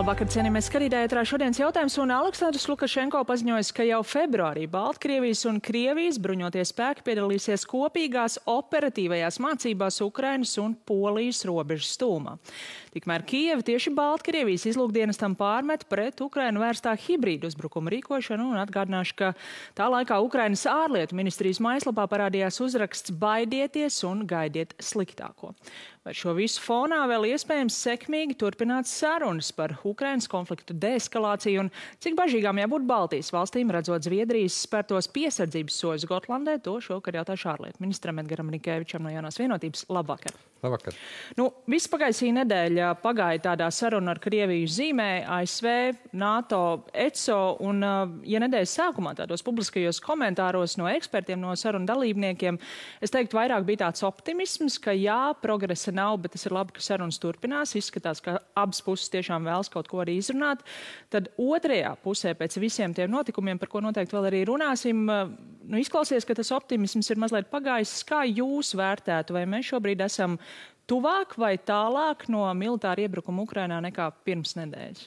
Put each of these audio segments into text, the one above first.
Labvakar, cienījamies skatītāji, ētrā šodienas jautājums, un Aleksandrs Lukašenko paziņojas, ka jau februārī Baltkrievijas un Krievijas bruņotie spēki piedalīsies kopīgās operatīvajās mācībās Ukrainas un Polijas robežas tūmā. Tikmēr Kijeva tieši Baltkrievijas izlūkdienestam pārmet pret Ukrainu vērstā hibrīdu uzbrukumu rīkošanu, un atgādināšu, ka tā laikā Ukrainas ārlietu ministrijas mājaslapā parādījās uzraksts "Baidieties un gaidiet sliktāko". Vai šo visu fonā vēl iespējams sekmīgi turpināt sarunas par Ukrainas konfliktu deeskalāciju un cik bažīgām jābūt Baltijas valstīm, redzot Zviedrijas spērtos piesardzības soļus Gotlandē? To šovakar jautāšu ārlietu ministram Edgaram Rinkēvičam no Jaunās vienotības. Labvakar! Labvakar! Viss pagaisī nedēļa pagāja tādā saruna ar Krieviju zīmē, ASV, NATO, ECO, un ja nedēļas sākumā tādos publiskajos komentāros no ekspertiem, no sarunu dalībniekiem, es teiktu, vairāk bija tāds optimisms, ka jā, progresa nav, bet tas ir labi, ka sarunas turpinās. Izskatās, ka abas puses tiešām vēlas kaut ko arī izrunāt. Tad otrajā pusē pēc visiem tiem notikumiem, par ko noteikti vēl arī runāsim, izklausies, ka tas optimisms ir mazliet pagājis. Kā jūs vērtētu, vai mēs šobrīd esam tuvāk vai tālāk no militāra iebrukuma Ukrainā nekā pirms nedēļas?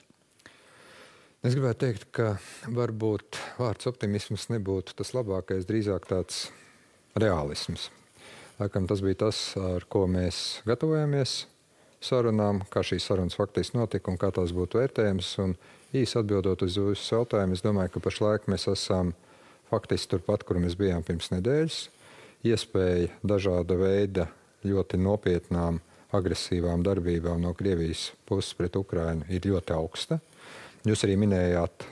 Es gribētu teikt, ka varbūt vārds optimisms nebūtu tas labākais, drīzāk tāds realisms. Laikam tas bija tas, ar ko mēs gatavojamies sarunām, kā šīs sarunas faktiski notika un kā tās būtu vērtējums. Un īsi atbildot uz jūsu jautājumu, es domāju, ka pašlaik mēs esam faktiski turpat, kur mēs bijām pirms nedēļas. Iespēja dažāda veida ļoti nopietnām agresīvām darbībām no Krievijas puses pret Ukrainu ir ļoti augsta. Jūs arī minējāt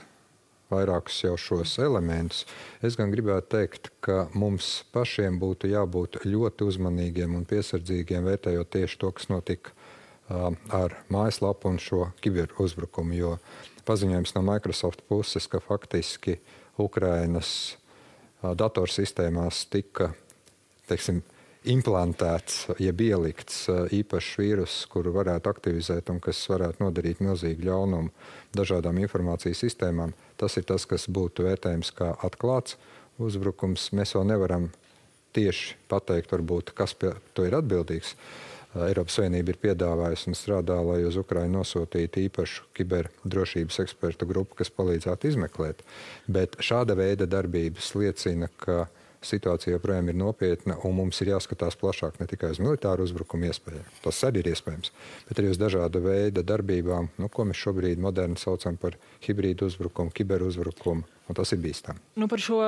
vairākus jau šos elementus. Es gan gribētu teikt, ka mums pašiem būtu jābūt ļoti uzmanīgiem un piesardzīgiem, vērtējot tieši to, kas notika ar mājaslapu un šo kiberuzbrukumu, jo paziņojums no Microsoft puses, ka faktiski Ukrainas datorsistēmās tika, implantēts, jeb ielikts īpašs vīrus, kuru varētu aktivizēt un kas varētu nodarīt milzīgu ļaunumu dažādām informācijas sistēmām. Tas ir tas, kas būtu vērtējums kā atklāts uzbrukums. Mēs vēl nevaram tieši pateikt, varbūt, kas pie to ir atbildīgs. Eiropas Savienība ir piedāvājusi un strādā, lai uz Ukrainu nosūtītu īpašu kiberdrošības ekspertu grupu, kas palīdzētu izmeklēt. Bet šāda veida darbības liecina, ka situācija joprojām ir nopietna, un mums ir jāskatās plašāk ne tikai uz militāru uzbrukumu iespējām. Tas arī ir iespējams, bet arī uz dažāda veida darbībām, ko mēs šobrīd moderni saucam par hibrīdu uzbrukumu, kiberuzbrukumu, un tas ir bīstami. Par šo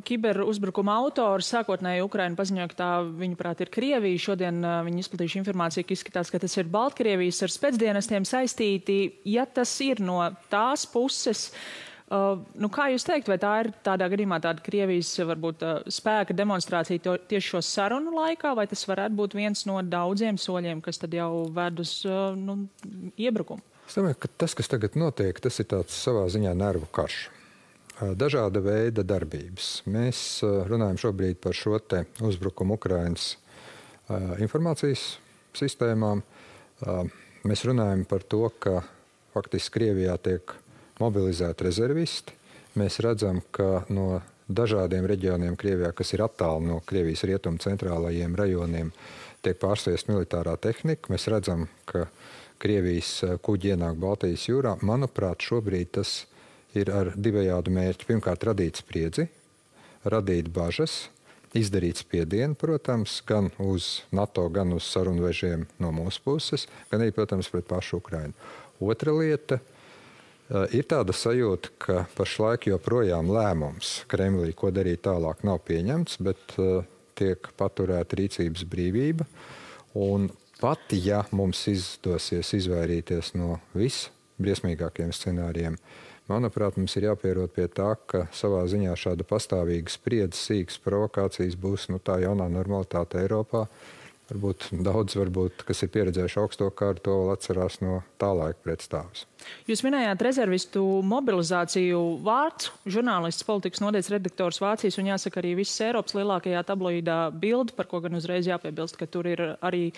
kiberuzbrukumu autoru sākotnēji Ukraina paziņoja, ka tā, viņuprāt, ir Krievija. Šodien viņi izplatījuši informāciju, ka izskatās, ka tas ir Baltkrievijas ar spēcdienestiem saistīti. Ja tas ir no tās puses, kā jūs teikt, vai tā ir tādā gadījumā tāda Krievijas varbūt spēka demonstrācija tieši šo sarunu laikā, vai tas varētu būt viens no daudziem soļiem, kas tad jau ved uz iebrukumu? Es domāju, ka tas, kas tagad notiek, tas ir tāds savā ziņā nervu karš. Dažāda veida darbības. Mēs runājam šobrīd par šo te uzbrukumu Ukrainas informācijas sistēmām. Mēs runājam par to, ka faktiski Krievijā tiek mobilizēti rezervisti. Mēs redzam, ka no dažādiem reģioniem Krievijā, kas ir attāli no Krievijas rietumu centrālajiem rajoniem, tiek pārsviest militārā tehnika. Mēs redzam, ka Krievijas kuģi ienāk Baltijas jūrā. Manuprāt, šobrīd tas ir ar divējādu mērķi. Pirmkārt, radīt spriedzi, radīt bažas, izdarīt spiedienu, protams, gan uz NATO, gan uz sarunvežiem no mūsu puses, gan arī, protams, pret pašu Ukrainu. Otra lieta ir tāda sajūta, ka pašlaik joprojām lēmums Kremlī, ko darīt tālāk, nav pieņemts, bet tiek paturēta rīcības brīvība. Un pat, ja mums izdosies izvairīties no visbriesmīgākiem scenārijiem, manuprāt, mums ir jāpierod pie tā, ka savā ziņā šāda pastāvīga spriedze, sīkas provokācijas būs tā jaunā normalitāte Eiropā. Varbūt daudz, kas ir pieredzējuši augsto karu, to vēl atcerās no tā laika pretstāvus. Jūs minējāt rezervistu mobilizāciju. Vārds, žurnālists, politikas nodaļas redaktors Vācijas un jāsaka arī visas Eiropas lielākajā tabloīdā Bild, par ko gan uzreiz jāpiebilst, ka tur ir arī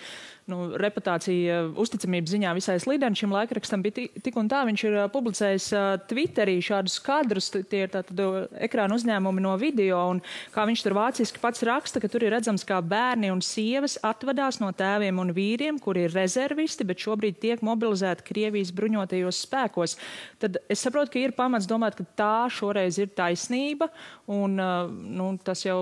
reputācija uzticamības ziņā visai slidena. Šim laikrakstam bija tik un tā, viņš ir publicējis Twitterī šādus kadrus, tie ir tātad ekrāna uzņēmumi no video, un kā viņš tur vāciski pats raksta, ka tur ir redzams, kā bērni un sievas atvadās no tēviem un vīriem, kuri ir rezervisti, bet šobrīd tiek mobilizēti Krievijas bruņotajos spēkos. Tad es saprotu, ka ir pamats domāt, ka tā šoreiz ir taisnība, un tas jau,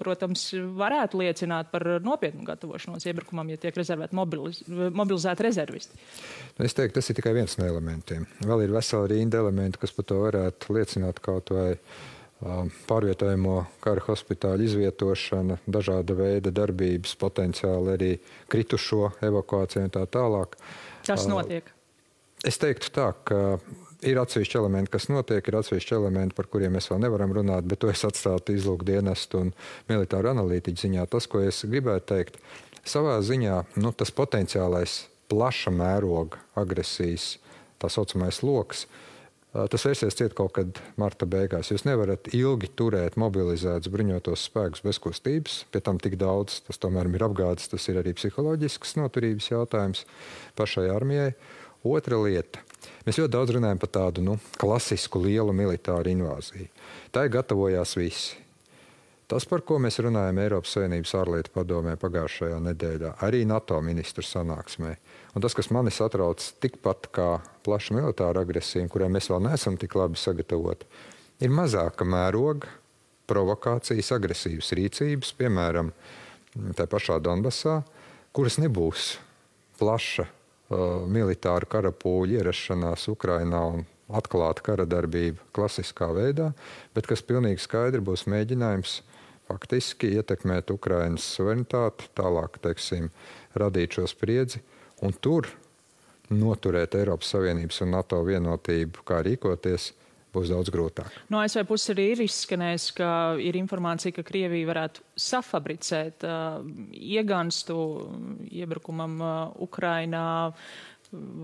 protams, varētu liecināt par nopietnu gatavošanos iebrukumam, ja tiek mobilizēti rezervisti. Es teiktu, tas ir tikai viens no elementiem. Vēl ir vesela rinda elementi, kas par to varētu liecināt, kaut vai pārvietojamo kara hospitāļu izvietošana, dažāda veida darbības, potenciāli arī kritušo evakuāciju un tā tālāk. Tas notiek? Es teiktu tā, ka ir atsevišķi elementi, kas notiek, ir atsevišķi elementi, par kuriem mēs vēl nevaram runāt, bet to es atstātu izlūkdienestu un militāru analītiķu ziņā. Tas, ko es gribētu teikt, savā ziņā tas potenciālais plaša mēroga agresijas, tā saucamais loks, tas vērsies ciet kaut kad marta beigās. Jūs nevarat ilgi turēt mobilizētus bruņotos spēkus bez kustības, pie tam tik daudz, tas tomēr ir apgādes, tas ir arī psiholoģisks noturības jautājums pašai armijai. Otra lieta. Mēs ļoti daudz runājam par tādu klasisku lielu militāru invāziju. Tā gatavojās visi. Tas, par ko mēs runājam Eiropas Savienības ārlietu padomē pagājušajā nedēļā, arī NATO ministru sanāksmē. Un tas, kas mani satrauc tikpat kā plaša militāra agresija, kurai mēs vēl neesam tik labi sagatavoti, ir mazāka mēroga provokācijas, agresīvas rīcības, piemēram, tā pašā Donbasā, kuras nebūs plaša militāru karapūļu ierašanās Ukrainā un atklāta kara darbība klasiskā veidā, bet kas pilnīgi skaidri būs mēģinājums faktiski ietekmēt Ukrainas suverenitāti, tālāk, radīt šo spriedzi un tur noturēt Eiropas Savienības un NATO vienotību, kā rīkoties, būs daudz grūtāk. No ASV puses arī ir izskanējis, ka ir informācija, ka Krievija varētu safabricēt ieganstu iebrukumam Ukrainā.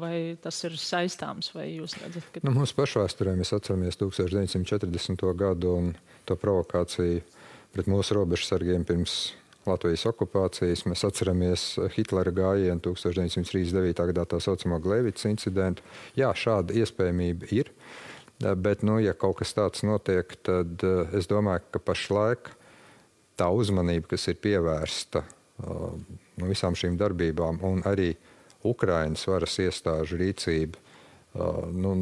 Vai tas ir saistāms, vai jūs redzat, ka... Mūsu pašvēsturē mēs atceramies 1940. gadu un to provokāciju pret mūsu robežsargiem pirms Latvijas okupācijas. Mēs atceramies Hitlera gājienu 1939. gadā tā saucamo Gleivicas incidentu. Jā, šāda iespējamība ir, bet, ja kaut kas tāds notiek, tad es domāju, ka pašlaik tā uzmanība, kas ir pievērsta visām šīm darbībām un arī Ukrainas varas iestāžu rīcība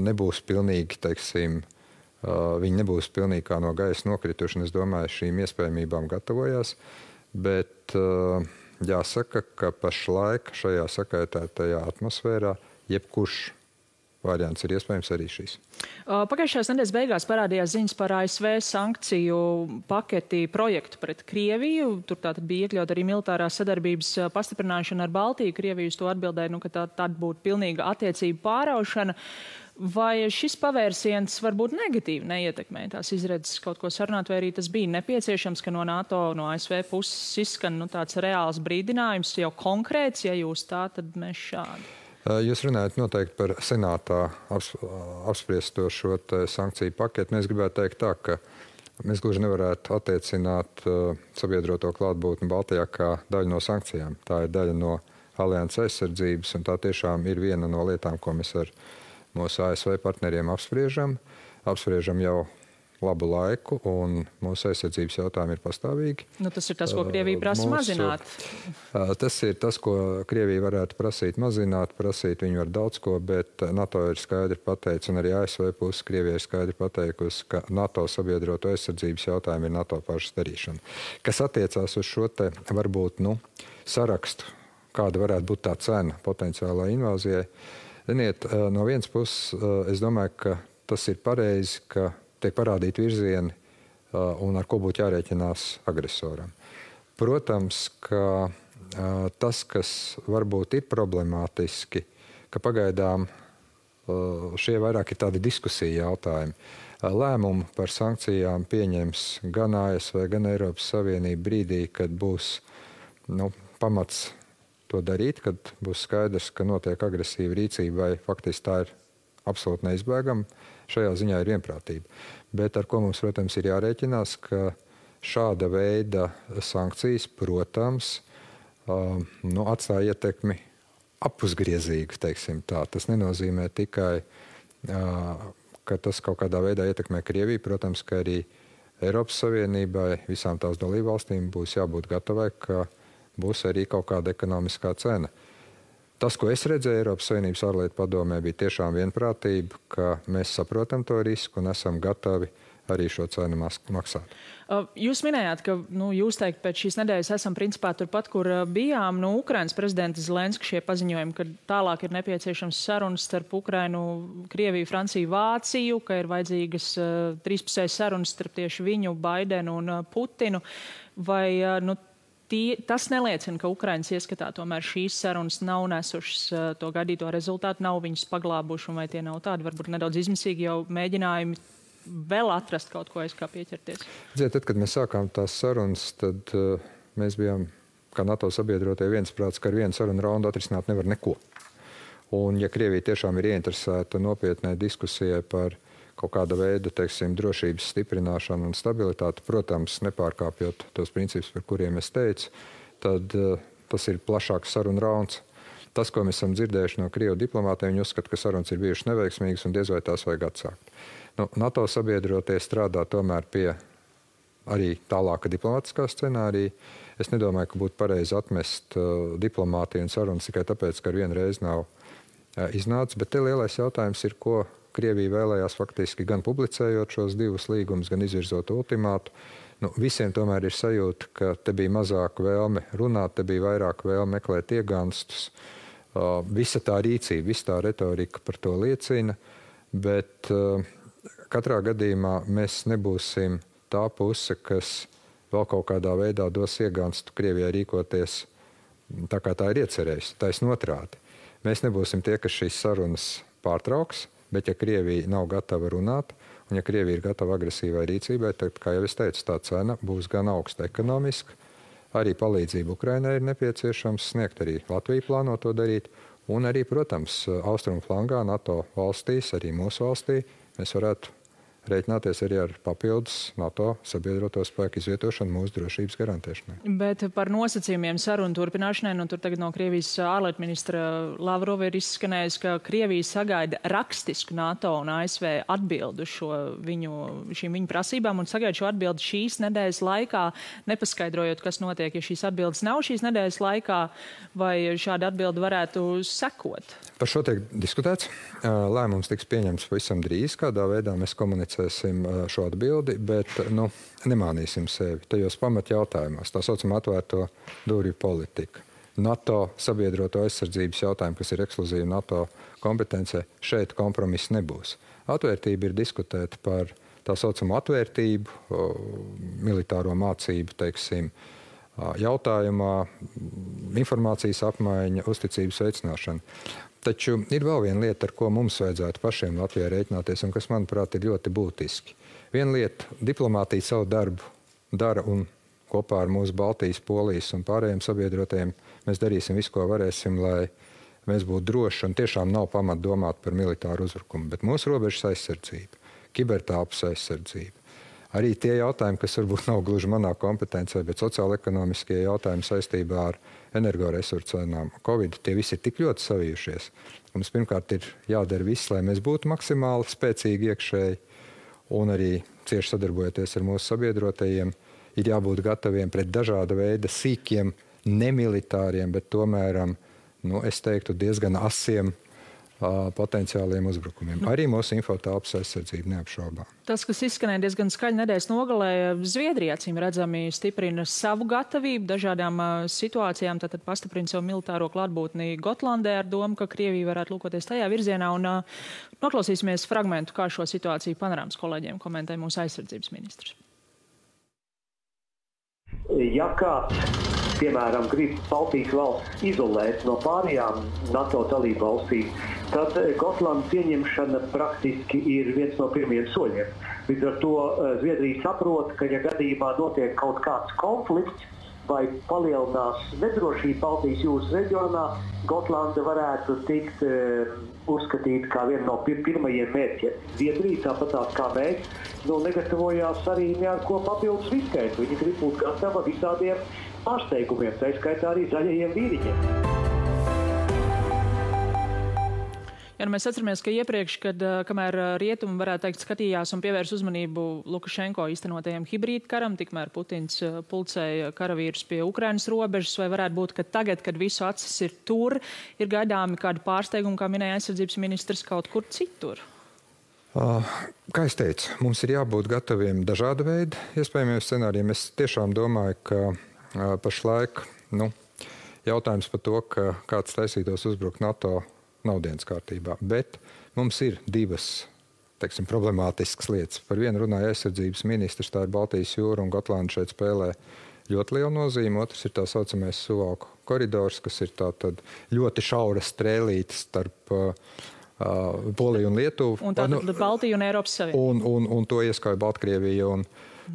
nebūs pilnīgi, viņi nebūs pilnīgi kā no gaisa nokrituši, un es domāju, šīm iespējamībām gatavojās, bet jāsaka, ka pašlaik šajā sakaitētajā atmosfērā jebkurš variants ir iespējams arī šīs. Pagājušās nedēļas beigās parādījās ziņas par ASV sankciju paketi projektu pret Krieviju. Tur tātad bija iekļaut arī militārās sadarbības pastiprināšana ar Baltiju. Krievija uz to atbildēja, ka tā būtu pilnīga attiecību pāraušana. Vai šis pavērsiens varbūt negatīvi neietekmē tās izredzes kaut ko sarunāt, vai arī tas bija nepieciešams, ka no NATO, no ASV puses izskan tāds reāls brīdinājums, jau konkrēts, ja jūs tā, tad mēs šādi? Jūs runājat noteikti par senātā apspriesto šo sankciju paketu. Es gribētu teikt tā, ka mēs gluži nevarētu attiecināt sabiedroto klātbūtni Baltijā kā daļu no sankcijām. Tā ir daļa no alianses aizsardzības, un tā tiešām ir viena no lietām, ko mēs ar mūsu ASV partneriem apspriežam. Apspriežam jau labu laiku, un mūsu aizsardzības jautājumi ir pastāvīgi. Tas ir tas, ko Krievija prasa mazināt. Tas ir tas, ko Krievija varētu prasīt mazināt. Prasīt viņi var daudz ko, bet NATO ir skaidri pateicis, un arī ASV puses Krievija ir skaidri pateikusi, ka NATO sabiedroto aizsardzības jautājumi ir NATO pašas darīšana. Kas attiecās uz šo te varbūt sarakstu, kāda varētu būt tā cena potenciālā invāzijai. Ziniet, no vienas puses, es domāju, ka tas ir pareizi, ka tiek parādīti virzieni un ar ko būtu jārēķinās agresoram. Protams, ka tas, kas varbūt ir problemātiski, ka pagaidām šie vairāk ir tādi diskusija jautājumi. Lēmumu par sankcijām pieņems gan ASV, gan Eiropas Savienība brīdī, kad būs pamats to darīt, kad būs skaidrs, ka notiek agresīva rīcība vai faktiski tā ir absolūti neizbēgama. Šajā ziņā ir vienprātība. Bet ar ko mums, protams, ir jārēķinās, ka šāda veida sankcijas, protams, atstāja ietekmi apusgriezīgu, teiksim tā. Tas nenozīmē tikai, ka tas kaut kādā veidā ietekmē Krieviju. Protams, ka arī Eiropas Savienībai, visām tās dalībvalstīm būs jābūt gatavai, ka būs arī kaut kāda ekonomiskā cena. Tas, ko es redzēju Eiropas Savienības ārlietu padomē, bija tiešām vienprātība, ka mēs saprotam to risku un esam gatavi arī šo cenu maksāt. Jūs minējāt, ka jūs teikt, pēc šīs nedēļas esam principā turpat, kur bijām. Ukrainas prezidenta Zelenska šie paziņojumi, ka tālāk ir nepieciešams sarunas starp Ukrainu, Krieviju, Franciju, Vāciju, ka ir vajadzīgas trīspusējas sarunas starp tieši viņu, Baidenu un Putinu. Vai tas neliecina, ka Ukrainas ieskatā tomēr šīs sarunas nav nesušas to gaidīto rezultātu, nav viņus paglābuši, un vai tie nav tādi varbūt nedaudz izmisīgi jau mēģinājumi vēl atrast kaut ko, kā pieķerties? Tad, kad mēs sākām tās sarunas, tad mēs bijām, kā NATO sabiedrotie, viensprāts, ka ar vienu sarunu raundu atrisināt nevar neko. Un ja Krievija tiešām ir ieinteresēta nopietnai diskusijai par kaut kāda veida, drošības stiprināšanu un stabilitāti, protams, nepārkāpjot tos principus, par kuriem es teicu, tad tas ir plašāks sarunu rauns. Tas, ko mēs esam dzirdējuši no Krievu diplomātiem, viņi uzskata, ka sarunas ir bijušas neveiksmīgas un diez vai tās vajag atsākt. NATO sabiedrotie strādā tomēr pie arī tālāka diplomātiskā scenārija. Es nedomāju, ka būtu pareizi atmest diplomātiju un sarunas tikai tāpēc, ka ar vienu reizi nav iznācis. Bet te lielais jautājums ir, ko Krievija vēlējās faktiski gan publicējot šos divus līgumus, gan izvirzot ultimātu. Visiem tomēr ir sajūta, ka te bija mazāk vēlme runāt, te bija vairāk vēlme meklēt ieganstus. Visa tā rīcība, visa tā retorika par to liecina, bet katrā gadījumā mēs nebūsim tā puse, kas vēl kaut kādā veidā dos ieganstu Krievijai rīkoties tā, kā tā ir iecerējusi. Taisn otrādi. Mēs nebūsim tie, kas šīs sarunas pārtrauks, bet ja Krievija nav gatava runāt, un ja Krievija ir gatava agresīvai rīcībai, tad, kā jau es teicu, tā cena būs gan augsta ekonomiska, arī palīdzību Ukrainai ir nepieciešams sniegt, arī Latvija plāno to darīt, un arī, protams, austrumu flangā, NATO valstīs, arī mūsu valstī, mēs varētu rēķināties arī ar papildus NATO sabiedroto spēku izvietošanu mūsu drošības garantēšanai. Bet par nosacījumiem sarunu turpināšanai, tur tagad no Krievijas ārlietu ministra Lavrova ir izskanējis, ka Krievija sagaida rakstisku NATO un ASV atbildu šīm viņu prasībām un sagaida šo atbildi šīs nedēļas laikā, nepaskaidrojot, kas notiek, ja šīs atbildes nav šīs nedēļas laikā, vai šāda atbilde varētu sekot? Par šo tiek diskutēts. Lēmums tiks pieņemts pavisam drīz, kādā veidā mēs komunicēsim šo atbildi, bet nemānīsim sevi tajos pamatjautājumos, tā saucamā atvērto durvju politika. NATO sabiedroto aizsardzības jautājumu, kas ir ekskluzīvi NATO kompetencē, šeit kompromiss nebūs. Atvērtība ir diskutēt par tā saucamo atvērtību, militāro mācību, jautājumā, informācijas apmaiņa, uzticības veicināšana. Taču ir vēl viena lieta, ar ko mums vajadzētu pašiem Latvijā rēķināties, un kas, manuprāt, ir ļoti būtiski. Viena lieta, diplomātija savu darbu dara, un kopā ar mūsu Baltijas, Polijas un pārējiem sabiedrotajiem mēs darīsim visu, ko varēsim, lai mēs būtu droši, un tiešām nav pamata domāt par militāru uzbrukumu. Bet mūsu robežas aizsardzība, kibertelpas aizsardzība, arī tie jautājumi, kas varbūt nav gluži manā kompetencē, bet sociāla-ekonomiskie jautājumi saistībā ar energoresursu cenām, Covid, tie visi ir tik ļoti savijušies. Mums pirmkārt ir jādara viss, lai mēs būtu maksimāli spēcīgi iekšēji, un arī cieši sadarbojoties ar mūsu sabiedrotajiem, ir jābūt gataviem pret dažāda veida sīkiem, nemilitāriem, bet tomēr, es teiktu, diezgan asiem potenciāliem uzbrukumiem. Arī mūsu infotelpas aizsardzība neapšaubām. Tas, kas izskanēja diezgan skaļi nedēļas nogalē, Zviedrija acīm redzami stiprina savu gatavību dažādām situācijām, tātad pastiprina savu militāro klātbūtni Gotlandē ar domu, ka Krievija varētu lūkoties tajā virzienā, un noklausīsimies fragmentu, kā šo situāciju panorāmas kolēģiem komentē mūsu aizsardzības ministrs. Ja kāds, piemēram, grib Baltijas valsts izolēt no pārējām NATO dalību valstīm, tad Gotlandas pieņemšana praktiski ir viens no pirmiem soļiem. Līdz ar to Zviedrija saprot, ka ja gadījumā notiek kaut kāds konflikts vai palielinās nedrošība Baltijas jūras reģionā, Gotlanda varētu tikt uzskatīta kā viena no pirmajiem mērķiem. Zviedrija, tāpatās kā mēs, negatavojās arī neko papildus riskēt. Viņi grib būt gatava visādiem pārsteigumiem, tā skaitā arī zaļajiem vīriņiem. Ja, mēs atceramies, ka iepriekš, kamēr rietumi, varētu teikt, skatījās un pievērs uzmanību Lukašenko īstenotajiem hibrīdkaram, tikmēr Putins pulcēja karavīrus pie Ukrainas robežas, vai varētu būt, ka tagad, kad visu acis ir tur, ir gaidāmi kādi pārsteigumi, kā minēja aizsardzības ministrs, kaut kur citur? Kā es teicu, mums ir jābūt gataviem dažāda veida iespējamiem scenārijiem. Es tiešām domāju, ka pašlaik jautājums par to, ka kāds taisītos uzbrukt NATO, nav dienas kārtībā. Bet mums ir divas, teiksim, problemātiskas lietas. Par vienu runāja aizsardzības ministrs, tā ir Baltijas jūra, un Gotlanda šeit spēlē ļoti lielu nozīmi. Otrs ir tā saucamais Suvalku koridors, kas ir tātad ļoti šaura strēlīte starp Poliju un Lietuvu. Un tātad Baltiju un Eiropas Savienību. Un to ieskauj Baltkrievija un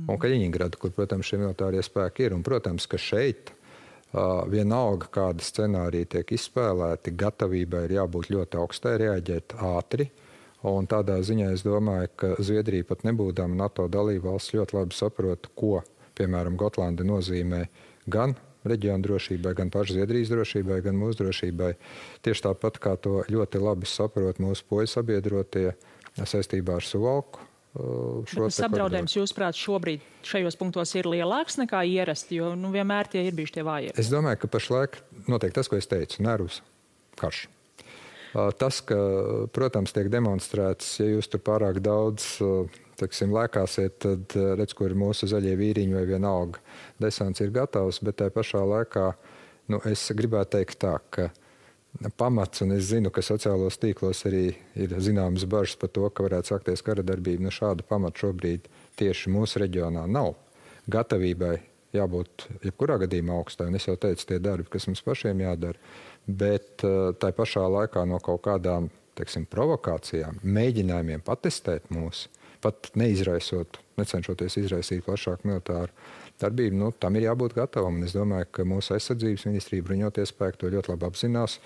Kaļiņingrada, kur, protams, šie militārie spēki ir. Un, protams, ka šeit vienalga, kāda scenārija tiek izspēlēti, gatavībai ir jābūt ļoti augstai, reaģēt ātri. Un tādā ziņā es domāju, ka Zviedrija pat nebūdama NATO dalībvalsts ļoti labi saprot, ko, piemēram, Gotlanda nozīmē gan reģiona drošībai, gan pašu Zviedrijas drošībai, gan mūsu drošībai. Tieši tāpat, kā to ļoti labi saprot mūsu poļu sabiedrotie saistībā ar Suvalku. Tas apdraudējums, jūsuprāt, šobrīd šajos punktos ir lielāks nekā ierasti, jo vienmēr tie ir bijuši tie vājie? Es domāju, ka pašlaik notiek tas, ko es teicu, nervus karš. Tas, ka, protams, tiek demonstrēts, ja jūs tur pārāk daudz, teiksim, lēkāsiet, tad redz, kur ir mūsu zaļie vīriņi vai vienalga. Desants ir gatavs, bet tajā pašā laikā, es gribētu teikt tā, ka pamats, un es zinu, ka sociālos tīklos arī ir zināmas bažas par to, ka varētu sākties kara darbība. Šāda pamata šobrīd tieši mūsu reģionā nav. Gatavībai jābūt jebkurā gadījumā augstai, un es jau teicu, tie darbi, kas mums pašiem jādara, bet tai pašā laikā no kaut kādām, teiksim, provokācijām, mēģinājumiem patestēt mūs, pat neizraisot, necenšoties izraisīt plašāku militāru darbību, tam ir jābūt gatavam. Un es domāju, ka mūsu aizsardzības ministrija, bruņotie spēki to ļoti labi apzinās.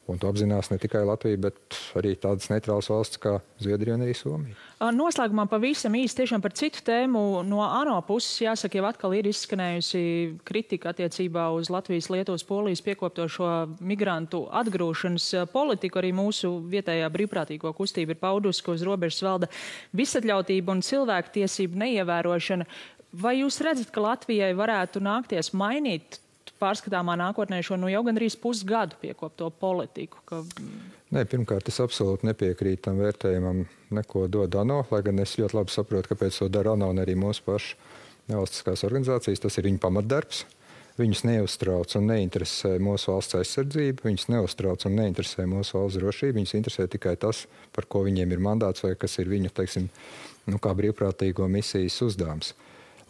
Un to apzinās ne tikai Latvija, bet arī tādas neitrālas valsts kā Zviedrija un arī Somija. Noslēgumā pavisam īsti tiešām par citu tēmu. No ANO puses, jāsaka, jau atkal ir izskanējusi kritika attiecībā uz Latvijas, Lietuvas, Polijas piekoptošo migrantu atgrūšanas politiku. Arī mūsu vietējā brīvprātīgo kustība ir paudusi, ka uz robežas valda visatļautība un cilvēku tiesību neievērošana. Vai jūs redzat, ka Latvijai varētu nākties mainīt pārskatāmā nākotnē šo jau gandrīz pusgadu piekopto politiku? Nē, pirmkārt, es absolūti nepiekrītu tam vērtējumam, neko dod ANO, lai gan es ļoti labi saprotu, kāpēc to dara ANO un arī mūsu pašu nevalstiskās organizācijas. Tas ir viņu pamatdarbs. Viņus neuztrauc un neinteresē mūsu valsts aizsardzība, viņus neuztrauc un neinteresē mūsu valsts drošība. Viņus interesē tikai tas, par ko viņiem ir mandāts vai kas ir viņu, teiksim, kā brīvprātīgo misijas uzdevums.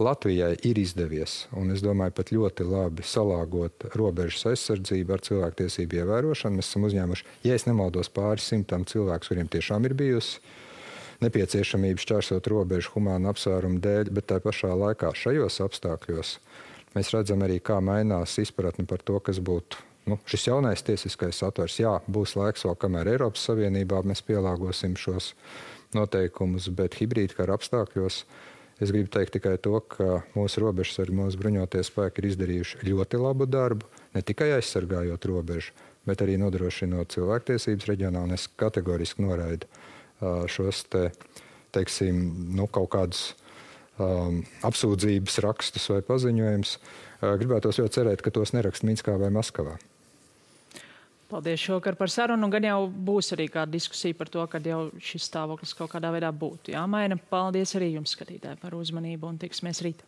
Latvijai ir izdevies, un es domāju, pat ļoti labi salāgot robežas aizsardzību ar cilvēktiesību ievērošanu. Mēs esam uzņēmuši, ja es nemaldos, pāris simtām cilvēku, kuriem tiešām ir bijusi nepieciešamība šķērsot robežu humānu apsvērumu dēļ, bet tā pašā laikā šajos apstākļos mēs redzam arī, kā mainās izpratne par to, kas būtu šis jaunais tiesiskais satvers. Jā, būs laiks vēl, kamēr Eiropas Savienībā mēs pielāgosim šos noteikumus, bet hibrīdkara apstākļos es gribu teikt tikai to, ka mūsu robežsargi, mūsu bruņotie spēki ir izdarījuši ļoti labu darbu, ne tikai aizsargājot robežu, bet arī nodrošinot cilvēktiesības reģionā, un es kategoriski noraidu šos teiksim, kaut kādus apsūdzības rakstus vai paziņojumus. Gribētos ļoti cerēt, ka tos neraksta Minskā vai Maskavā. Paldies šovakar par sarunu. Gan jau būs arī kāda diskusija par to, kad jau šis stāvoklis kaut kādā veidā būtu jāmaina. Paldies arī jums, skatītāji, par uzmanību un tiksimies rīt.